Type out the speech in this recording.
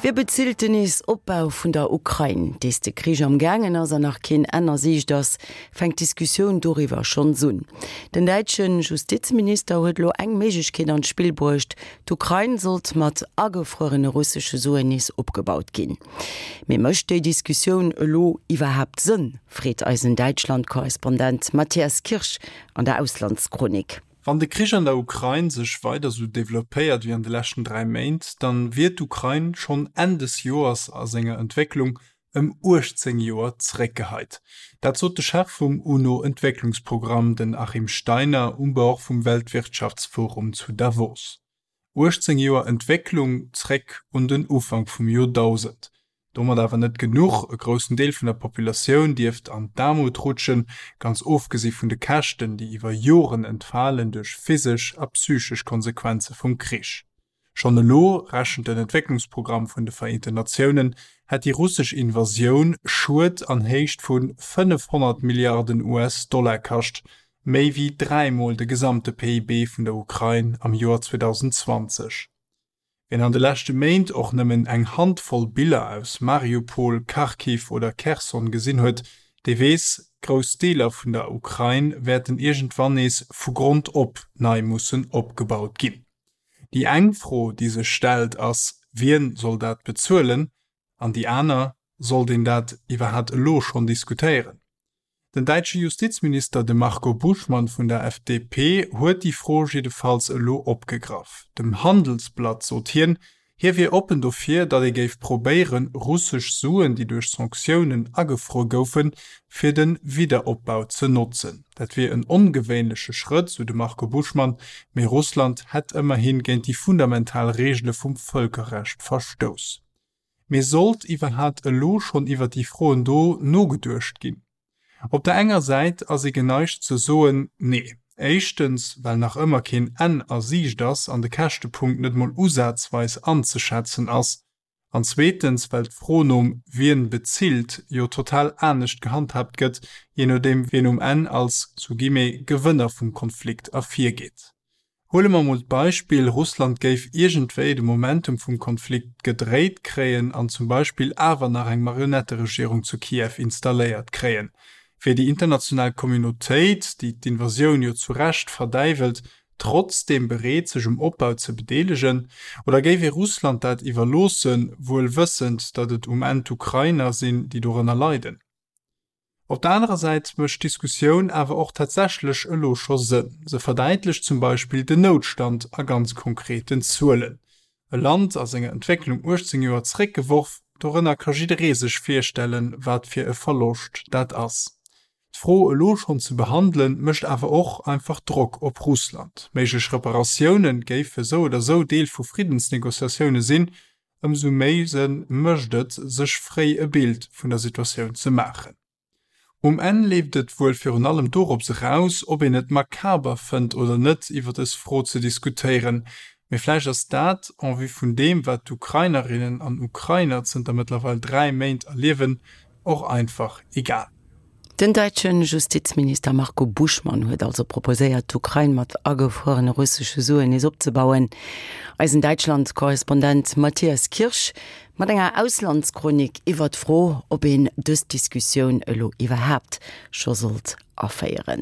Wie bezilt den Nees-Opbau vun der Ukrain? Dees de Krich am gaangen ass an nach keen Enn a Siicht ass, fänkt d'Diskussioun doriwwer schonns un. Den däitsche Justizminister huet elo eng Méiglechkeet an d'Spill bruecht, D'Ukrain sollt mat agefruerene russesche Suen nees opgebaut ginn. Mee mécht déi Diskussioun elo iwwerhaapt Sënn, freet eisen Däitschland-Korrespondent Matthias Kirsch an der Auslandschronik. Wann de Krich an der Ukrain sech weider sou developpéiert wéi an de leschten 3 Méint, dann wier d'Ukrain schonn Enn des Joers a senger Entwécklung ëm 18 Joer zeréckgeheit. Dat sot de Chef vum UNO-Entwécklungsprogramm, den Achim Steiner, um Bord vum Weltwirtschaftsforum zu Davos. 18 Joer Entwécklung zréck un den Ufank vum Joerdausend. Domat awer net genuch, e groussen Deel vun der Populatioun dierft an d'Aarmut rutschen, ganz ofgesi vun de Käschten, déi iwwer Joren entfalen duerch physesch a psychesch Konsequenze vum Krich. Schonn elo, rechent den Entwécklungsprogramm vun de Vereenten Natiounen, hätt déi russesch Invasioun Schued an Héicht vu 500 Milliarden US-Dollar kascht, méi wéi dräimol de gesamte PIB vun der Ukrain am Joer 2020. Wien an de leschte Méint och nëmmen eng Handvoll Biller aus Mariupol, Kharkiv oder Kherson gesinn huet, dee weess, Grouss Deeler vun der Ukrain wäerten iergendwann nees vu Grond op nei mussen opgebaut ginn. Déi eng Fro, déi sech stellt, ass, Wien soll dat bezuelen? An déi aner, Sollt een dat iwwerhat elo schonn diskutéieren? Den däitsche Justizminister, de Marco Buschmann vun der FDP, huet déi Fro jiddefalls elo opgegraff. Dem Handelsblatt sot hien, Hie wier oppen dofir, datt ee géif probéieren, russesch Suen, déi duerch Sanktiounen agefruer goufen, fir de Wiederopbau ze notzen. Dat wier en ongewéinleche Schrëtt, sou de Marco Buschmann, mee Russland hätt ëmmerhi géint déi fundamental Reegele vum Vëlkerrecht verstouss. Mee sollt iwwerhat elo schonn iwwer déi Froen do nogeduecht ginn? Op der enger Säit ass ee geneigt ze soen, Nee. Éischtens, well nach ëmmer keen Enn a Siicht ass an de Käschtepunkt net mol usazweis anzeschätzen ass. An zweetens, well d'Fro nom Wien bezilt jo total anescht gehandhaabt gëtt, jee nodeem wien um Enn als, sous guillemets, Gewënner vum Konflikt ervirgeet. Huele mer mol d'Beispill, Russland géif iergendwéi de Momentum vum Konflikt gedréit kréien an zum Beispill awer nach eng Marionetteregierung zu Kiew installéiert kréien. Wier déi international Communautéit, déi d'Invasioun jo zu Recht verdäiwelt, trotzdeem bereet sech um Opbau ze bedeelegen? Oder géif ee Russland dat iwwerloossen, wuel wëssend, datt et um Enn d'Ukrainer sinn, déi dorënner leiden? Op der anerer Säit mécht d'Diskussioun awer och tatsächlech elo scho Sënn. Se verdäitlecht zum Beispill den Noutstand a ganz konkreten Zuelen. E Land a senger Entwécklung 18 Joer zeréckgeworf, dorënner ka jidderee sech virstellen, wat fir e Verloscht dat ass. D'Fro elo schonn ze behandelen, mécht awer och einfach Drock op Russland. Méiglech Reparatioune géife sou oder sou Deel vu Friddensnegociatioune sinn, Ëmsou méi Sënn mécht et, sech fréi e Bild vun der Situatioun ze maachen. Um Enn leeft et wuel virun allem dorops eraus, ob een et makaber fënnt oder net, iwwer dës Fro ze diskutéieren. Mee vläicht ass dat, en vue vun deem, wat d'Ukrainerinnen an Ukrainer zënter mëttlerweil 3 Méint erliewen, och einfach egal. Den däitsche Justizminister Marco Buschmann huet also proposéiert, d'Ukrain mat agefruerene russesche Suen nees opzebauen. Eisen Däitschland-Korrespondent Matthias Kirsch mat enger Auslandschronik iwwer d'Fro, ob een dës Diskussioun elo iwwerhaapt scho sollt aféieren.